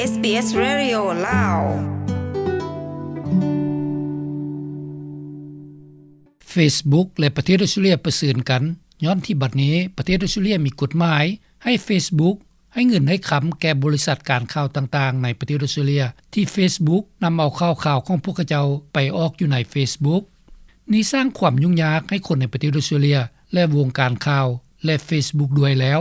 ເອສບີເອສ Radio ລາວ. Facebook ແລະປະເທດອົດສະຕຣາເລຍປະເຊີນກັນ ຍ້ອນທີ່ບັດນີ້ປະເທດອົດສະຕຣາເລຍມີກົດໝາຍໃຫ້ Facebook ໃຫ້ເງິນໃຫ້ຄຳແກ່ບໍລິສັດການຂ່າວຕ່າງໆໃນປະເທດອົດສະຕຣາເລຍ ທີ່ Facebook ນຳເອົາຂ່າວຂອງພວກເຂົາເຈົ້າໄປອອກຢູ່ໃນ Facebook. ນີ້ສ້າງຄວາມຫຍຸ້ງຍາກໃຫ້ຄົນໃນປະເທດອົດສະຕຣາເລຍ ແລະວົງການຂ່າວ ແລະ Facebook ດ້ວຍແລ້ວ.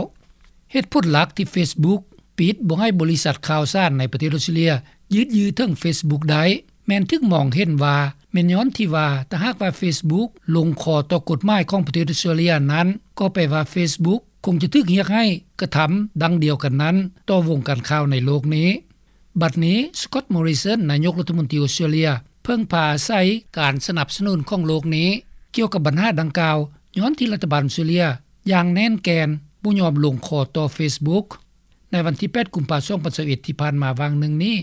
ເຫດຜົນຫຼັກທີ່ Facebook ປິດບໍ່ໃຫ້ບໍລິສັດຂ່າວສານໃນປະເທດອົດສະຕຣາເລຍຢືດເຍື້ອເຖິງ Facebook ໄດ້ ແມ່ນຖືກມອງເຫັນວ່າແມ່ນຍ້ອນທີ່ວ່າ ຖ້າຫາກວ່າ Facebook ລົງຂໍ້ຕໍ່ກົດໝາຍຂອງປະເທດອົດສະຕຣາເລຍນັ້ນ ກໍແປວ່າ Facebook ຄົງຈະຖືກຮຽກຮ້ອງໃຫ້ກະທຳດັ່ງດຽວກັນນັ້ນຕໍ່ວົງການຂ່າວໃນໂລກນີ້. ບັດນີ້ Scott Morrison ນາຍົກລັດຖະມົນຕີອົດສະຕຣາເລຍ ເພິ່ງພາອາໄສການສະໜັບສະໜູນຂອງໂລກນີ້ ກ່ຽວກັບບັນຫາດັ່ງກ່າວ ຍ້ອນທີ່ລັດຖະບານອົດສະຕຣາເລຍຢ່າງແໜ້ນແກ່ນບໍ່ຍອມລົງຂໍ້ຕໍ່ Facebook. ໃນວັນທີແປດ ກຸມພາ ສອງພັນຊາວເອັດ ທີ່ຜ່ານມາຫວ່າງໜຶ່ງນີ້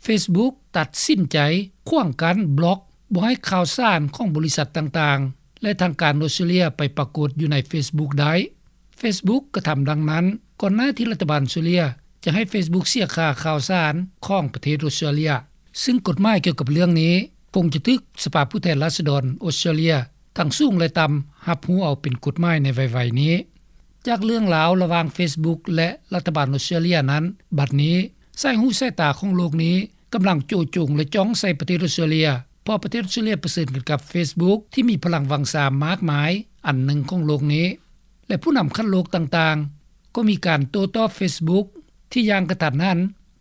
Facebook ຕັດສິນໃຈຂວາງກັ້ນ ບລັອກ ບໍ່ໃຫ້ຂ່າວສານຂອງບໍລິສັດຕ່າງໆ ແລະທາງການອົດສະຕຣາເລຍໄປປາກົດຢູ່ໃນ Facebook ໄດ້. Facebook ກະທຳດັ່ງນັ້ນ ກ່ອນໜ້າທີ່ລັດຖະບານອົດສະຕຣາເລຍຈະໃຫ້ Facebook ເສຍຄ່າຂ່າວສານຂອງປະເທດອົດສະຕຣາເລຍ ຊຶ່ງກົດໝາຍກ່ຽວກັບເລື່ອງນີ້ຄົງຈະຖືກສະພາຜູ້ແທນລາຊະດອນອົດສະຕຣາເລຍ ທັງສູງ ແລະ ຕ່ຳ ຮັບຮູ້ເອົາເປັນກົດໝາຍໃນໄວໆນີ້. ຈາກເລື່ອງລາວລະຫວ່າງ Facebook ແລະລັດຖະບານອົດສະຕຣາເລຍນັ້ນ ບັດນີ້ສາຍຫູສາຍຕາຂອງໂລກນີ້ກຳລັງໂຈະຈົງ ແລະ ຈ້ອງໃສ່ປະເທດອົດສະຕຣາເລຍ ເພາະປະເທດອົດສະຕຣາເລຍປະເຊີນກັນກັບ Facebook ທີ່ມີພະລັງວັງຊາມາກມາຍອັນໜຶ່ງຂອງໂລກນີ້ ແລະຜູ້ນຳຂັ້ນໂລກຕ່າງໆ ກໍມີການໂຕ້ຕອບ Facebook ທີ່ຢ່າງກະທັນຫັນ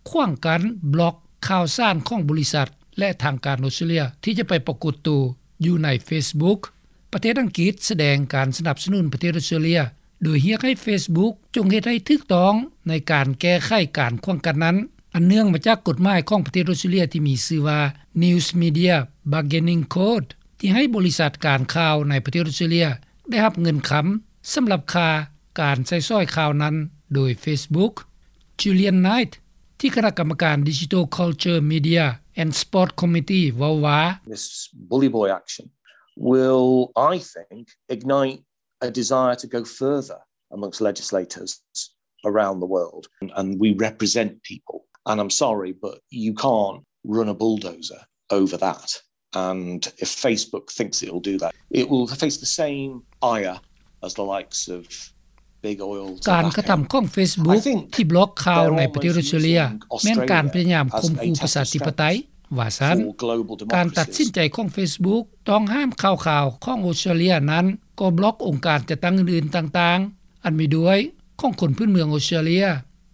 ຂວາງກັ້ນ ບລັອກ ຂ່າວສານຂອງບໍລິສັດ ແລະທາງການອົດສະຕຣາເລຍ ທີ່ຈະໄປປາກົດໂຕຢູ່ໃນ Facebook. ປະເທດອັງກິດສະແດງການສະໜັບສະໜູນປະເທດອົດສະຕຣາເລຍ ໂດຍຮຽກໃຫ້ Facebook ຈົ່ງເຮັດໃຫ້ຖືກຕ້ອງໃນການແກ້ໄຂການຂວາງກັ້ນນັ້ນ ອັນເນື່ອງມາຈາກກົດໝາຍຂອງປະເທດອົດສະຕຣາເລຍທີ່ມີຊື່ວ່າ News Media Bargaining Code ທີ່ໃຫ້ບໍລິສັດການຂ່າວໃນປະເທດອົດສະຕຣາເລຍໄດ້ຮັບເງິນຄຳສຳລັບຄ່າການໃຊ້ສອຍຂ່າວນັ້ນໂດຍ Facebook. Julian Knight ທີ່ຄະນະກຳມະການ Digital Culture, Media and Sport Committee ເວົ້າວ່າ This bully boy action will, I think, ignite a desire to go further amongst legislators around the world. And, and we represent people. And I'm sorry, but you can't run a bulldozer over that. And if Facebook thinks it'll do that, it will face the same ire as the likes of big oil, tobacco. ການກະທຳຂອງ Facebook ທີ່ບລັອກຂ່າວໃນປະເທດອົດສະຕຣາເລຍ ແມ່ນການພະຍາຍາມຂົ່ມຂູ່ປະຊາທິປະໄຕ ວ່າຊັ້ນ. ການຕັດສິນໃຈຂອງ Facebook ຕ້ອງຫ້າມຂ່າວຂອງອົດສະຕຣາເລຍນັ້ນ ກໍບລັອກອົງການຈັດຕັ້ງອື່ນໆຕ່າງໆ ອັນມີດ້ວຍຂອງຄົນພື້ນເມືອງອົດສະຕຣາເລຍ,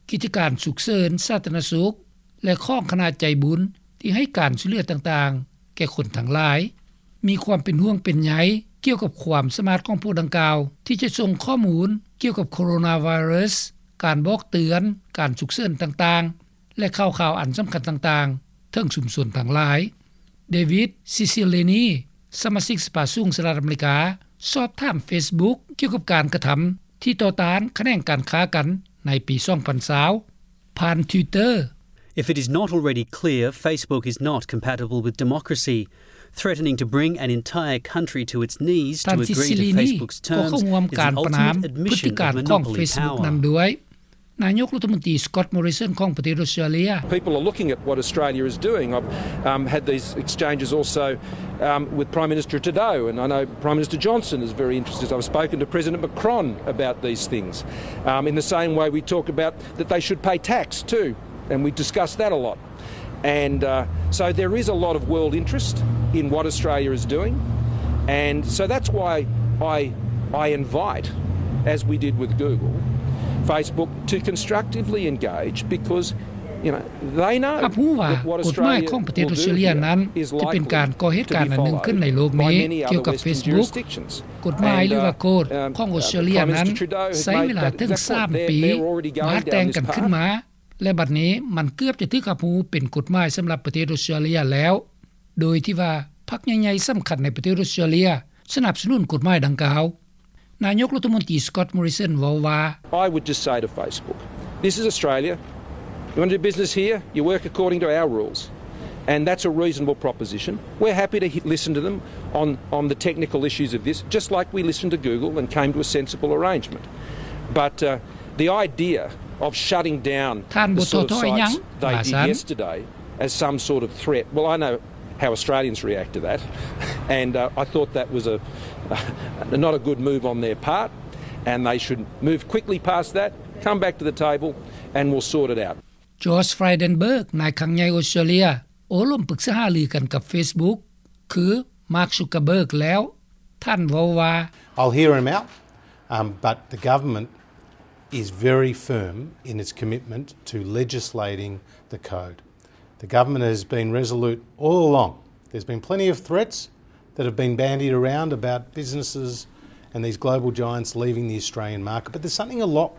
ກິດຈະການສຸກເສີນສາທາລະນະສຸກ ແລະ ຂອງຄະນະໃຈບຸນທີ່ໃຫ້ການຊ່ວຍເຫຼືອຕ່າງໆແກ່ຄົນທັງຫຼາຍ. ມີຄວາມເປັນຫ່ວງເປັນໃຍກ່ຽວກັບຄວາມສາມາດຂອງພວກດັ່ງກ່າວ ທີ່ຈະສົ່ງຂໍ້ມູນກ່ຽວກັບໂຄໂຣນາໄວຣັສ, ການບອກເຕືອນ, ການສຸກເສີນຕ່າງໆ ແລະ ຂ່າວຄາວອັນສຳຄັນຕ່າງໆ ເຖິງຊຸມຊົນທັງຫຼາຍ. David Cicilline ສະມາຊິກສະພາສູງສະຫະລັດອາເມລິກາ ສອບຖາມ Facebook ກ່ຽວກັບການກະທຳທີ່ຕໍ່ຕ້ານຂະແໜງການຄ້າກັນໃນປີສອງພັນຊາວ ຜ່ານ Twitter. If it is not already clear, Facebook is not compatible with democracy. Threatening to bring an entire country to its knees to agree to Facebook's terms is an ultimate admission of monopoly power. ນາຍົກລັດຖະມົນຕີ Scott Morrison ຂອງປະເທດອົດສະຕຣາເລຍ. People are looking at what Australia is doing. I've, um, had these exchanges also, um, with Prime Minister Trudeau, and I know Prime Minister Johnson is very interested. I've spoken to President Macron about these things, um, in the same way we talk about that they should pay tax too, and we discuss that a lot. And, uh, so there is a lot of world interest in what Australia is doing. And so that's why I, I invite, as we did with Google, Facebook to constructively engage because, you know, they know that what Australia will do here is likely to be followed. ຮັບຮູ້ວ່າກົດໝາຍຂອງປະເທດອົດສະຕຣາເລຍນັ້ນ ຈະເປັນການກໍ່ເຫດການອັນໜຶ່ງຂຶ້ນໃນໂລກນີ້ກ່ຽວກັບ Facebook. ກົດໝາຍ ຫຼືວ່າ Code ຂອງອົດສະຕຣາເລຍນັ້ນ ໃຊ້ເວລາເຖິງສາມປີມາແຕ່ງກັນຂຶ້ນມາ ແລະ ບັດນີ້ມັນເກືອບຈະຖືກຮັບຮູ້ເປັນກົດໝາຍສຳລັບປະເທດອົດສະຕຣາເລຍແລ້ວ ໂດຍທີ່ວ່າພັກໃຫຍ່ໆສຳຄັນໃນປະເທດອົດສະຕຣາເລຍສະໜັບສະໜູນກົດໝາຍດັ່ງກ່າວ. ນາຍົກລັດຖະມົນຕີ Scott Morrison ເວົ້າວ່າ. I would just say to Facebook, this is Australia. You want to do business here? You work according to our rules. And that's a reasonable proposition. We're happy to listen to them on, on the technical issues of this, just like we listened to Google and came to a sensible arrangement. But, uh, the idea of shutting down ທ່ານບໍ່ທໍ້ຖອຍຫຍັງ ວ່າຊັ້ນ. As some sort of threat. Well, I know how Australians react to that, and, uh, I thought that was a, not a good move on their part, and they should move quickly past that, come back to the table, and we'll sort it out. Josh Frydenberg ນາຍຄັງໃຫຍ່ອົດສະຕຣາເລຍ ໂອ້ລົມປຶກສາຫາລືກັນກັບ Facebook ຄື Mark Zuckerberg ແລ້ວ. ທ່ານເວົ້າວ່າ I'll hear him out, um, but the government is very firm in its commitment to legislating the code. The government has been resolute all along. There's been plenty of threats that have been bandied around about businesses and these global giants leaving the Australian market, but there's something a lot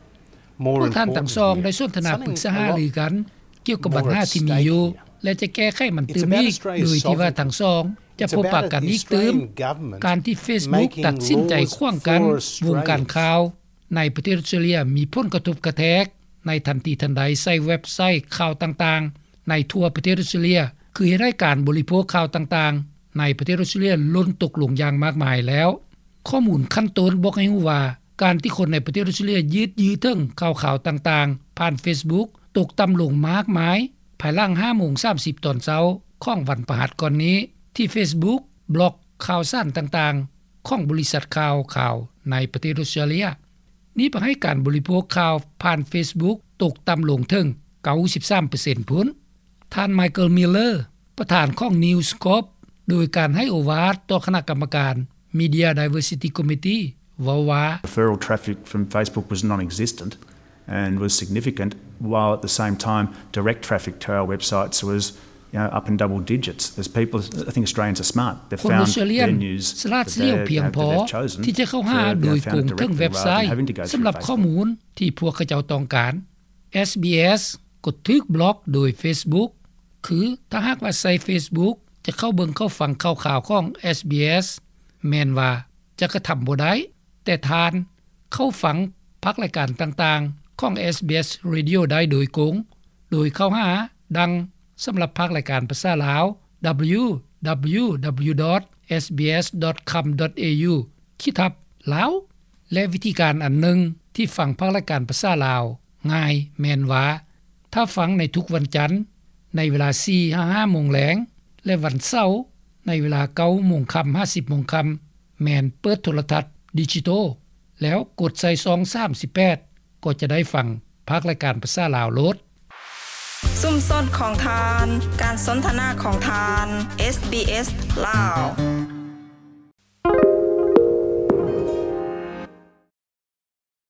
more important here. ພວກທ່ານທັງສອງໄດ້ສົນທະນາປຶກສາຫາລືກັນກ່ຽວກັບບັນຫາທີ່ມີຢູ່ ແລະ ຈະແກ້ໄຂມັນຕື່ມອີກ ໂດຍທີ່ວ່າທັງສອງຈະພົບປະກັນອີກຕື່ມ. ການທີ່ Facebook ຕັດສິນໃຈຂວາງກັ້ນວົງການຂ່າວ ໃນປະເທດອົດສະຕຣາເລຍມີຜົນກະທົບກະແທກໃນທັນທີທັນໃດໃສ່ເວັບໄຊຂ່າວຕ່າງໆໃນທົ່ວປະເທດອົດສະຕຣາເລຍ ຄືເຮັດໃຫ້ການບໍລິໂພກຂ່າວຕ່າງໆໃນປະເທດອົດສະຕຣາເລຍຫຼົ່ນຕົກລົງຢ່າງມາກມາຍແລ້ວ. ຂໍ້ມູນຂັ້ນຕົ້ນບອກໃຫ້ຮູ້ວ່າ ການທີ່ຄົນໃນປະເທດອົດສະຕຣາເລຍຢືດຢື້ເຖິງຂ່າວຄາວຕ່າງໆຜ່ານ Facebook ຕົກຕ່ຳລົງມາກມາຍ ພາຍຫຼັງຫ້າໂມງສາມສິບຕອນເຊົ້າຂອງວັນພະຫັດກ່ອນນີ້ ທີ່ Facebook ບລັອກຂ່າວສານຕ່າງໆຂອງບໍລິສັດຂ່າວຂາວໃນປະເທດອົດສະຕຣາເລຍ. ນີ້ເຮັດໃຫ້ການບໍລິໂພກຂ່າວຜ່ານ Facebook ຕົກຕ່ຳລົງເຖິງເກົ້າສິບສາມເປີເຊັນພຸ້ນ. ທ່ານ Michael Miller ປະທານຂອງ News Corp ໂດຍການໃຫ້ໂອວາດຕໍ່ຄະນະກຳມະການ Media Diversity Committee ເວົ້າວ່າ Referral traffic from Facebook was non-existent and was significant, while at the same time direct traffic to our websites was, you know, up in double digits. As people, I think Australians are smart. They've found their news that they've chosen to go directly rather than having to go through Facebook. ຄົນອົດສະຕຣາເລຍສະຫຼາດສຽວພຽງພໍທີ່ຈະເຂົ້າຫາໂດຍກົງເຖິງເວັບໄຊສຳລັບຂໍ້ມູນທີ່ພວກເຂົາເຈົ້າຕ້ອງການ. SBS ກໍຖືກບລັອກໂດຍ Facebook ຄືຖ້າຫາກວ່າໃຊ້ Facebook ຈະເຂົ້າເບິ່ງເຂົ້າຟັງຂ່າວຄາວຂອງ SBS ແມ່ນວ່າຈະກະທຳບໍ່ໄດ້, ແຕ່ທ່ານເຂົ້າຟັງພາກລາຍການຕ່າງໆຂອງ SBS Radio ໄດ້ໂດຍກົງ ໂດຍເຂົ້າຫາ ດັ່ງສຳລັບພາກລາຍການພາສາລາວ www.sbs.com.au ຂີດທັບ Lao ແລະ ວິທີການອັນໜຶ່ງທີ່ຟັງພາກລາຍການພາສາລາວງ່າຍແມ່ນວ່າ ຖ້າຟັງໃນທຸກວັນຈັນໃນເວລາສີ່ຫາຫ້າໂມງແລງ ແລະ ວັນເສົາໃນເວລາເກົ້າໂມງຄ່ຳຫາສິບໂມງຄ່ຳ ແມ່ນເປີດໂທລະທັດດິຈິໂຕ ແລ້ວກົດໃສ່ຊ່ອງສາມສິບແປດ ກໍຈະໄດ້ຟັງພາກລາຍການພາສາລາວໂລດ. ຊຸມຊົນຂອງທ່ານ, ການສົນທະນາຂອງທ່ານ, SBS ລາວ.